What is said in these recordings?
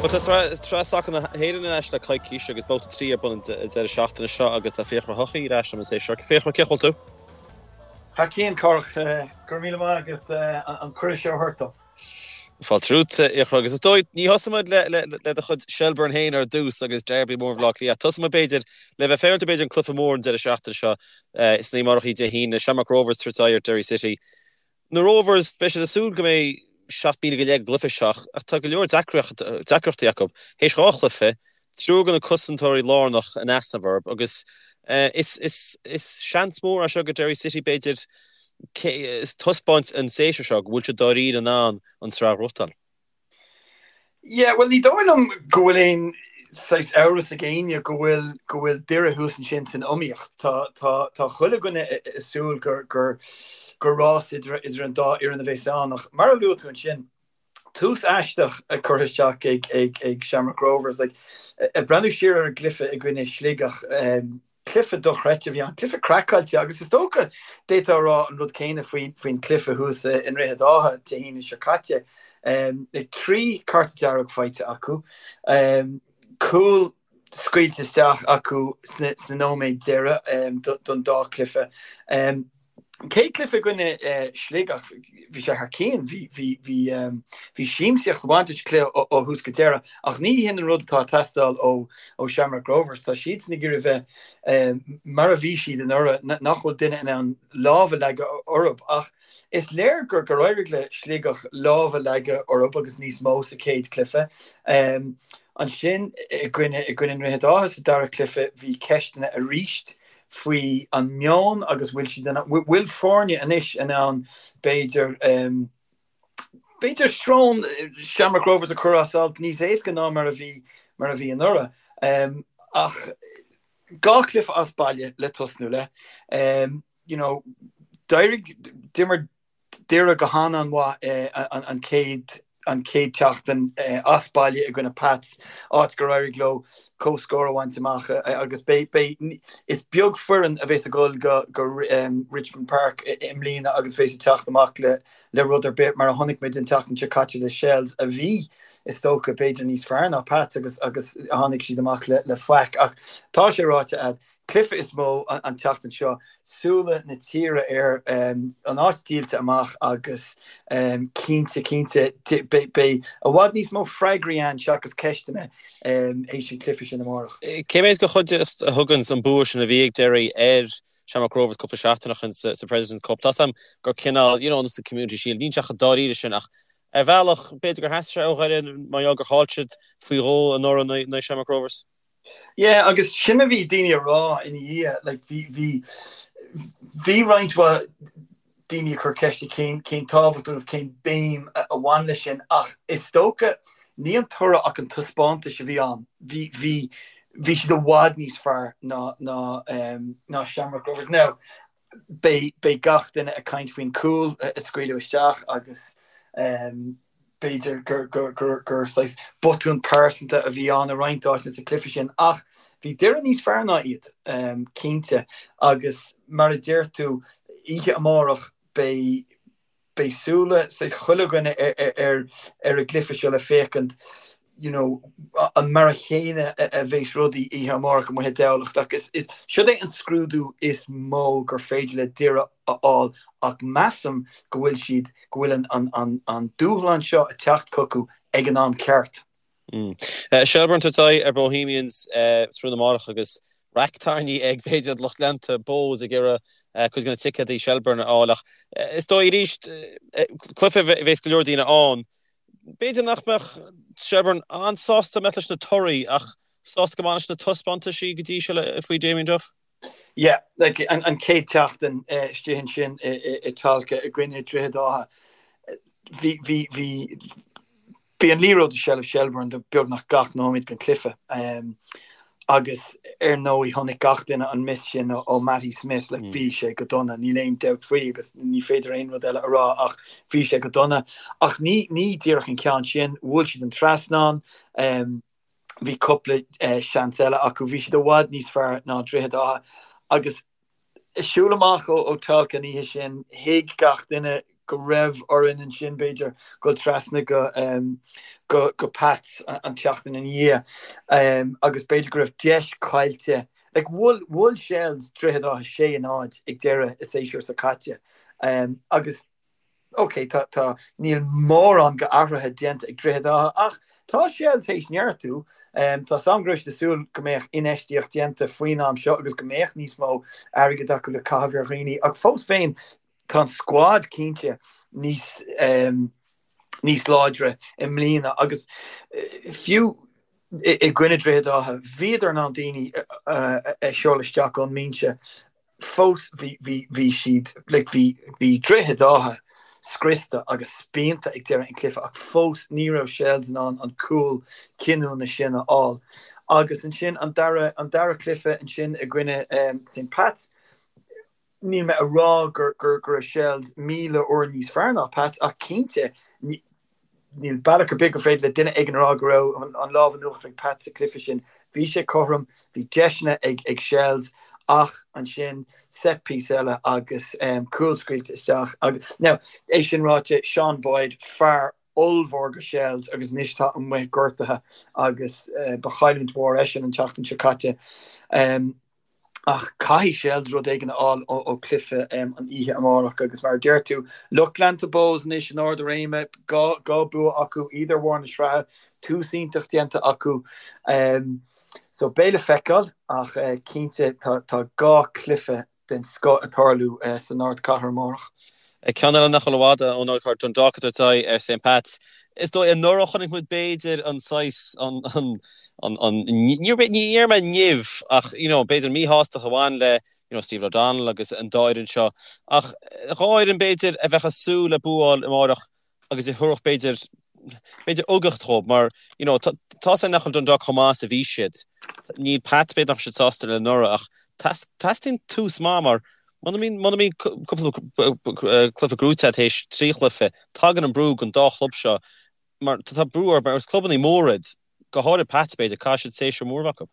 Bhuel, tá Sraith Sacair na hÉireann ar ais le coicís agus babhta 3 ar bun an deireadh seachtaine seo agus tá Fiachra Ó hEochaidh ar ais liom an seo. Fiachra, cén chaoi a bhfuil tú? Thar cionn, Cárthach. Go raibh míle maith agat an cuireadh seo a thabhairt dom. Fáilte romhat, a Fhiachra, agus is dóigh, ní thosóidh muid le do chuid Shelbourne féin ar dtús agus Derby mór Bhaile Átha Cliath. Tosóidh muid b'fhéidir le bheith féaráilte b'fhéidir an cluiche mór an deireadh seachtaine seo san oíche amárach Dé hAoine, Shamrock Rovers ag tabhairt aghaidh ar Derry City. Na Rovers, beidh siad ag súil go mbeidh 7,000 go leith ag an gcluiche seo ach tá go leor deacrachtaí acu. Théis 2 chluiche, triúr de na cosantóirí lárnach in easnamh orthu agus is seans mór é seo do Derry City b'fhéidir taispeáint an séasúr seo go bhfuil siad dáiríre in ann an tsraith a ghnóthachtáil. Yeah, bhuel ní dóigh liom go bhfuil aon saghas amhras ag éinne go bhfuil go bhfuil Doire thuas ansin san iomaíocht. Tá tá tá chuile dhuine ag súil gur gur gur rás idir idir an dá fhoireann a bheas ann ach mar a luaigh tú ansin, tús aisteach curtha isteach ag ag ag Shamrock Rovers. Like, ag breathnú siar ar an gcluiche i gcoinne Sligeach, Cluiche dochreidte a bhí ann, cluiche craiceáilte agus is dócha d'fhéadfá a rá an rud céanna faoin gcluiche thuas i nDroichead Átha Dé hAoine seo caite. 3 cárta dearg faighte acu, cúl scaoilte isteach acu sna nóiméid deiridh don dá chluiche. Chéad chluiche i gcoinne Sligeach, bhí sé thar cionn, bhí, bhí, bhí, bhí siamsaíocht ag baint leis an chluiche ó thús go deireadh ach ní hin an rud atá ag teastáil ó, ó Shamrock Rovers. Tá siadsan ag iarraidh bheith mar a bhí siad anuraidh, nach bhfuil duine in ann lámh a leagadh orthu ach is léir gur, gur éirigh le Sligeach lámh a leagadh orthu agus níos mó sa chéad chluiche. Ansin i gcoinne, i gcoinne Droichead Átha sa dara cluiche bhí ceisteanna arís faoi an meon agus bhfuil siad in ann, bhfuil foirne anois in ann b'fhéidir, b'fhéidir srón Shamrock Rovers a chur as alt níos éasca ná mar a bhí, mar a bhí anuraidh. Ach 2 chluiche as baile le tosnú le, you know, d'éirigh, d'imir Doire go han-an-mhaith an chéad an chéad tseachtain as baile i gcoinne Pats, áit gur éirigh leo comhscór a bhaint amach agus beidh, beidh, is beag foireann a bheas ag dul go go Richmond Park i mbliana agus bheas ag teacht amach le le rud ar bith mar a chonaic muid an tseachtain seo caite le Shels a bhí is dócha b'fhéidir níos fearr ná Pats agus agus tháinig siad amach le le faic ach tá sé ráite a'd Cluiche is mó an tseachtain seo, súile na tíre air, an áit díolta amach agus cinnte, cinnte, beidh i bhfad níos mó freagraí ann seachas ceisteanna théis an chluiche sin amárach. Cé mhéad de chuideachta a thugann an bua sin a bhí ag Derry ar Shamrock Rovers cúpla seachtain ó shin sa President's Cup? Tá's a'm gur cineál, you know, sa Community Shield, níl sé chomh dáiríre sin ach ar bhealach, b'fhéidir gur theastaigh sé ó Dhoire mar gheall gur chaill siad faoi dhó anuraidh in aghaidh Shamrock Rovers. Yeah, agus sin a bhí daoine a rá ina dhiaidh, like bhí, bhí, bhí roinnt mhaith daoine ag cur ceiste cén, cén tábhacht agus cén béim a bhain leis sin ach is dócha ní an toradh ach an taispeántas a bhí ann. Bhí, bhí, bhí siad i bhfad níos fearr ná, ná, ná Shamrock Rovers. Now, beidh, beidh gach duine ag caint faoin cúl a scaoileadh isteach agus b'fhéidir gur, gur, gur, gur saghas botún pearsanta a bhí ann i roinnt áiteanna sa chluiche sin ach bhí Doire níos fearr ná iad, cinnte, agus mar a deir tú, oíche amárach beidh, beidh súile saghas chuile dhuine ar an gcluiche seo le féachaint you know an mar a chéanna a bheas rudaí oíche amárach amuigh i dTamhlacht ach is is siod é an scrúdú is mó gur féidir le Doire a fháil ach measaim go bhfuil siad go bhfuil an an an an dúshlán seo ag teacht chucu ag an am ceart. Shelbourne ag tabhairt aghaidh ar Bohemians tráthnóna amárach agus raic tairní ag b'fhéidir lucht leanta Bohs ag iarraidh cuid de na ticéadaí Shelbourne a fháil ach is dóigh arís cluiche a bheas go leor daoine ann. B'fhéidir nach mbeadh Shelbourne an-sásta mbeadh leis na torthaí ach sásta go maith leis na taispeántaisí go dtí seo faoi Damien Duff. Yeah, like an an chéad tseachtain istigh ansin i Tolka i gcoinne Droichead Átha bhí bhí bhí Bhí an liathróid i seilbh Shelbourne do beagnach gach nóiméad den chluiche agus ar ndóigh chonaic gach duine an miss sin ó Matty Smith, like bhí sé go dona, níl aon dabht faoi agus ní féidir aon rud eile a rá ach bhí sé go dona. Ach ní ní díreach an ceann sin, bhuail siad an trasnán, bhí cúpla seans eile acu, bhí siad i bhfad níos fearr ná Droichead Átha agus ag siúl amach ó Tolka an oíche sin, thuig gach duine. go raibh orainn ansin, b'fhéidir, dul trasna go go go Pats an tseachtain ina dhiaidh agus b'fhéidir go raibh deis caillte. Like, bhuail bhuail Shels Droichead Átha 6-0 ag deireadh an séasúir seo caite agus ok, tá tá níl mórán go athruithe déanta ag Droichead Átha ach tá Shels théis neartú. Tá 's a'm go raibh siad ag súil go mbeadh infheistíocht déanta faoin am seo agus go mbeadh níos mó airgid acu le caitheamh ar dhaoine ach fós féin tá an scuad cinnte níos níos láidre i mbliana agus fiú i gcoinne Droichead Átha bhíodar in ann daoine a sheoladh isteach ón mbinse fós bhí bhí bhí siad like bhí bhí Droichead Átha scriosta agus spíonta ag deireadh an chluiche ach fós ní raibh Shels in ann an cúl cinniúna sin a fháil. Agus ansin an dara an dara cluiche ansin i gcoinne St Pats Níl mé a rá go raibh Shels 1,000 uair níos fearr ná Pats ach cinnte níl bealach ar bith gur féidir le duine éigin a rá go raibh an lámh in uachtar ag Pats sa chluiche sin. Bhí sé cothrom, bhí deiseanna ag Shels ach ansin set piece eile agus cúl scaoilte isteach agus now é sin ráite Sean Boyd fear ollmhór go Shels agus anois tá amuigh gortaithe agus ba chailliúint mhór eisean an tseachtain seo caite. Ach caithfidh Shels rud éigin a fháil ó chluiche an oíche amárach agus mar a deir tú, lucht leanta Bohs anois in ard a réime, 2 bua acu, iad ar bharr na sraithe, tús iontach déanta acu. So beidh le feiceáil ach cinnte tá 2 chluiche den scoth ag tarlú san ardchathair amárach. Ceann eile nach bhfuil i bhfad ón ardchathair, Dundalk ag tabhairt aghaidh ar St Pats. Is dóigh anuraidh chonaic muid b'fhéidir an saghas, an, an, an, an, ní déarfaidh mé nimh ach you know b'fhéidir míshástacht a bhain le you know Stephen O'Donnell agus an dá fhoireann seo. Ach dhá fhoireann b'fhéidir a bheadh ag súil le bua a fháil amárach agus a thabharfadh b'fhéidir, b'fhéidir uchtach dhóibh mar you know tá tá's againn nach bhfuil Dundalk chomh maith is a bhí siad. Níl Pats b'fhéidir nach raibh siad sásta le anuraidh ach teastaíonn tús maith mar muna mbíonn muna mbíonn cúpla cluiche gnóthaithe agat théis 3 chluiche, tagann an brú don dá chlub seo mar tá brú orthu mar is clubanna móra iad, go háirid Pats b'fhéidir, caithfidh siad séasúr mór a bheith acu.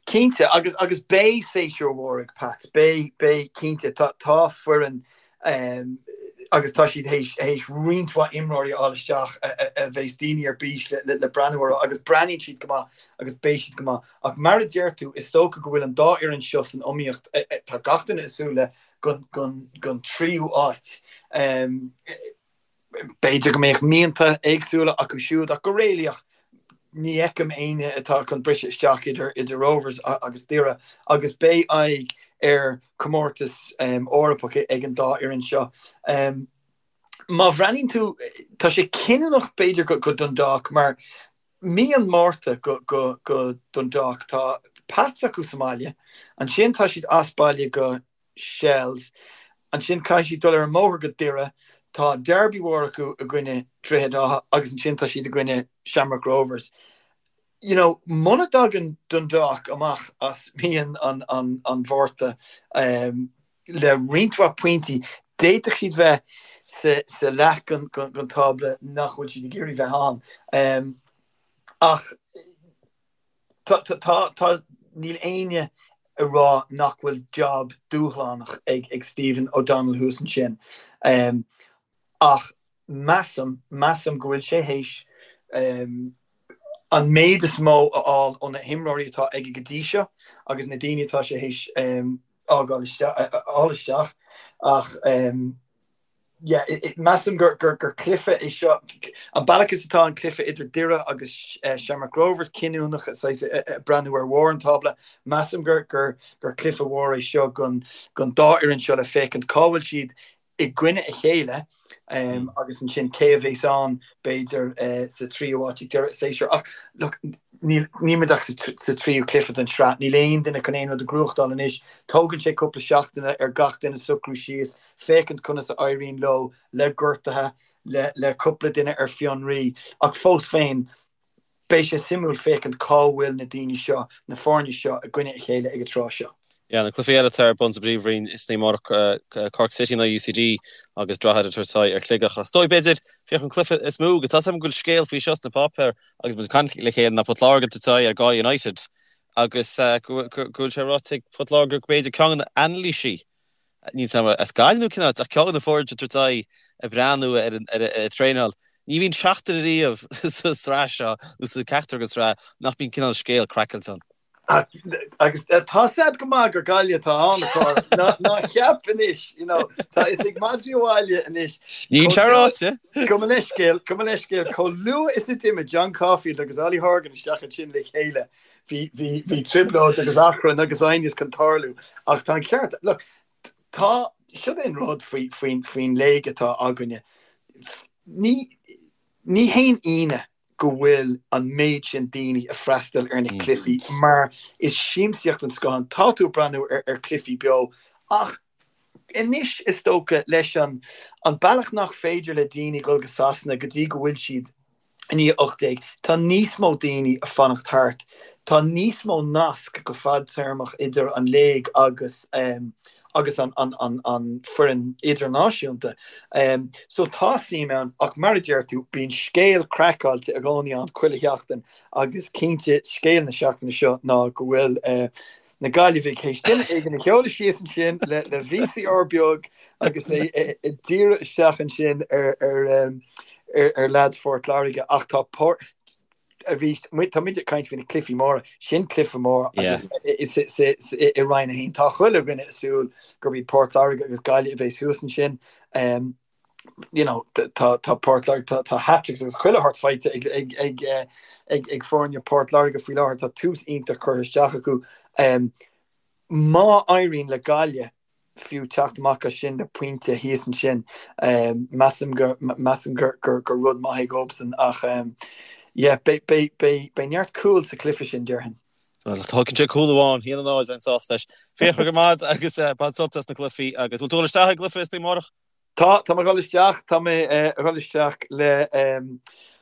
Cinnte, agus agus beidh séasúr mhór ag Pats, beidh, beidh, cinnte. Tá, tá foireann agus tá siad théis, théis roinnt mhaith imreoirí a fháil isteach a, a, a bheas daoine ar bís le, le, le breathnú orthu agus breathnaíonn siad go maith agus beidh siad go maith. Ach mar a deir tú, is dócha go bhfuil an dá fhoireann seo san iomaíocht, tá gach duine ag súil le gon, gon, gon tríú áit. B'fhéidir go mbeadh mianta éagsúla acu siúd ach go réalaíoch ní fheicim éinne atá chun briseadh isteach idir idir Rovers agus Doire agus beidh aghaidh ar chomórtas Eorpach ag an dá fhoireann seo. Má bhreathnaíonn tú, tá sé cinniúnach b'fhéidir go Dundalk mar mí an Mhárta go go Dundalk tá Pats acu sa mbaile, ansin tá siad as baile go Shels. Ansin caithfidh siad dul ar an mbóthar go Doire. Tá derby mhór acu i gcoinne Droichead Átha agus ansin tá siad i gcoinne Shamrock Rovers. You know, muna dtagann Dundalk amach as mí an an Mhárta le roinnt mhaith pointí, d'fhéadfadh siad bheith sa sa leath den den tábla nach bhfuil siad ag iarraidh bheith ann. Ach Tá, tá, tá, níl éinne ag rá nach bhfuil job dúshlánach ag, ag Stephen O'Donnell thuas ansin. Ach measaim, measaim go bhfuil sé théis an méid is mó a fháil ó na himreoirí atá aige go dtí seo agus na daoine atá sé théis fhágáil isteach, a fháil isteach ach yeah, measaim gur cluiche é seo, an bealach is atá an cluiche idir Doire agus Shamrock Rovers cinniúnach, saghas ag breathnú ar bharr an tábla, measaim gur cluiche mhór é seo don dá fhoireann seo le féachaint cá bhfuil siad i gcoinne a chéile agus ansin cé a bheas ann b'fhéidir sa tríú háit ag deireadh an tséasúir. Ach look, níl muid ach sa tríú cluiche den tsraith, níl aon duine chun aon rud a ghnóthachtáil anois. Tógann sé cúpla seachtaine ar gach duine socrú síos, féachaint conas a éiríonn leo le gortuithe, le le cúpla duine ar fionraí, ach fós féin, beidh sé suimiúil féachaint cá bhfuil na daoine seo, na foirne seo i gcoinne a chéile ag an tráth seo. Yeah, na cluichí eile atá ar bun sa bPríomhroinn san oíche amárach, Cork City in aghaidh UCD agus Droichead ag tabhairt aghaidh ar Shligeach. Is dóigh, b'fhéidir, féach an cluiche is mó, agus tá 's agam go bhfuil scéal faoi seo sna páipéir agus muid ag caint le chéile, ná Port Láirge ag tabhairt aghaidh ar Galway United agus go bhfuil sé ráite ag Port Láirge go b'fhéidir ceann de na hanailísí Níl 's agam as Gaillimh nó cén áit, ach ceann de na foirne ag tabhairt aghaidh. ag breathnú ar an traenáil, ní bhíonn seachtain ariamh sa tsraith seo nó sa ceachtar den tsraith nach mbíonn cineál scéal craiceáilte ann. Agus tá 's a'd go maith gur Gaillimh atá ann, a Chárthaigh. Ná ceap anois, you know, tá fhios ag madraí an bhaile anois. Níl sé ráite. Gabh mo leithscéal, gabh mo leithscéal, chomh luath is a d'imigh John Caulfield agus Ollie Horgan isteach ansin le chéile, bhí, bhí, bhí trioblóid agus achrann agus aighneas chun tarlú. Ach tá an ceart, look, tá, siod é an rud faoi, faoin, faoin léig atá againne. Ní, ní haon ionadh go bhfuil an méid sin daoine ag freastal ar na cluichí mar is siamsaíocht den scoth ann. Tá tú ag breathnú ar chluichí beo ach anois is dócha leis an an bealach nach féidir le daoine dul go Sasana go dtí go bhfuil siad i ndiaidh 18, tá níos mó daoine ag fanacht thart. Tá níos mó nasc go fadtéarmach idir an léig agus agus an foireann idirnáisiúnta. So tá suim ann ach mar a deir tú, bíonn scéal craiceáilte i gcónaí ann chuile sheachtain agus cinnte scéal na seachtaine seo ná go bhfuil na Gaillimhigh théis duine éigin a sheoladh síos ansin le le VCR beag agus é ag díriú isteach ansin ar ar ar leaids Phort Láirge ach tá arís, tá muid ag caint faoi na cluichí móra, sin cluiche mór agus i Roinn 1 tá chuile dhuine ag súil gurb iad Port Láirge agus Gaillimh a bheas thuas ansin. You know, tá tá Port Láirge, tá tá hat-tricks agus chuile shórt faighte ag ag ag ag ag foirne Port Láirge faoi láthair, tá tús iontach curtha isteach acu. Má éiríonn le Gaillimh fiú teacht amach as sin le pointe thíos ansin. Measaim gur measaim gur gur gur rud maith é dhóibhsean ach yeah beidh beidh beidh beidh neart cúl sa chluiche sin déarfainn. Bhuel tógann sé cúl amháin, 1-0 bheinn sásta leis. Fiachra go maith agus bain sult as na cluichí agus bhfuil tú ag dul isteach ag an gcluiche istoíche amárach? Tá, tá mé ag dul isteach, tá mé ag dul isteach le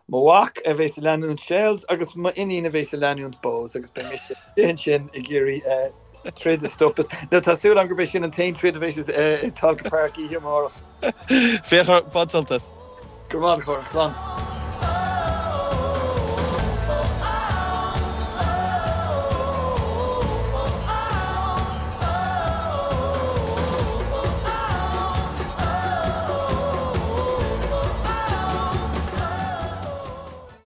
mo mhac a bheas ag leanúint Shels agus m'iníon a bheas ag leanúint Bohs agus beidh mise istigh ansin ag iarraidh troid a stopadh. Nó tá súil agam gurb é sin an t-aon troid a bheas i Tolka Park oíche amárach. Fiachra, bain sult as. Go raibh maith agat, a Chárthaigh. Slán.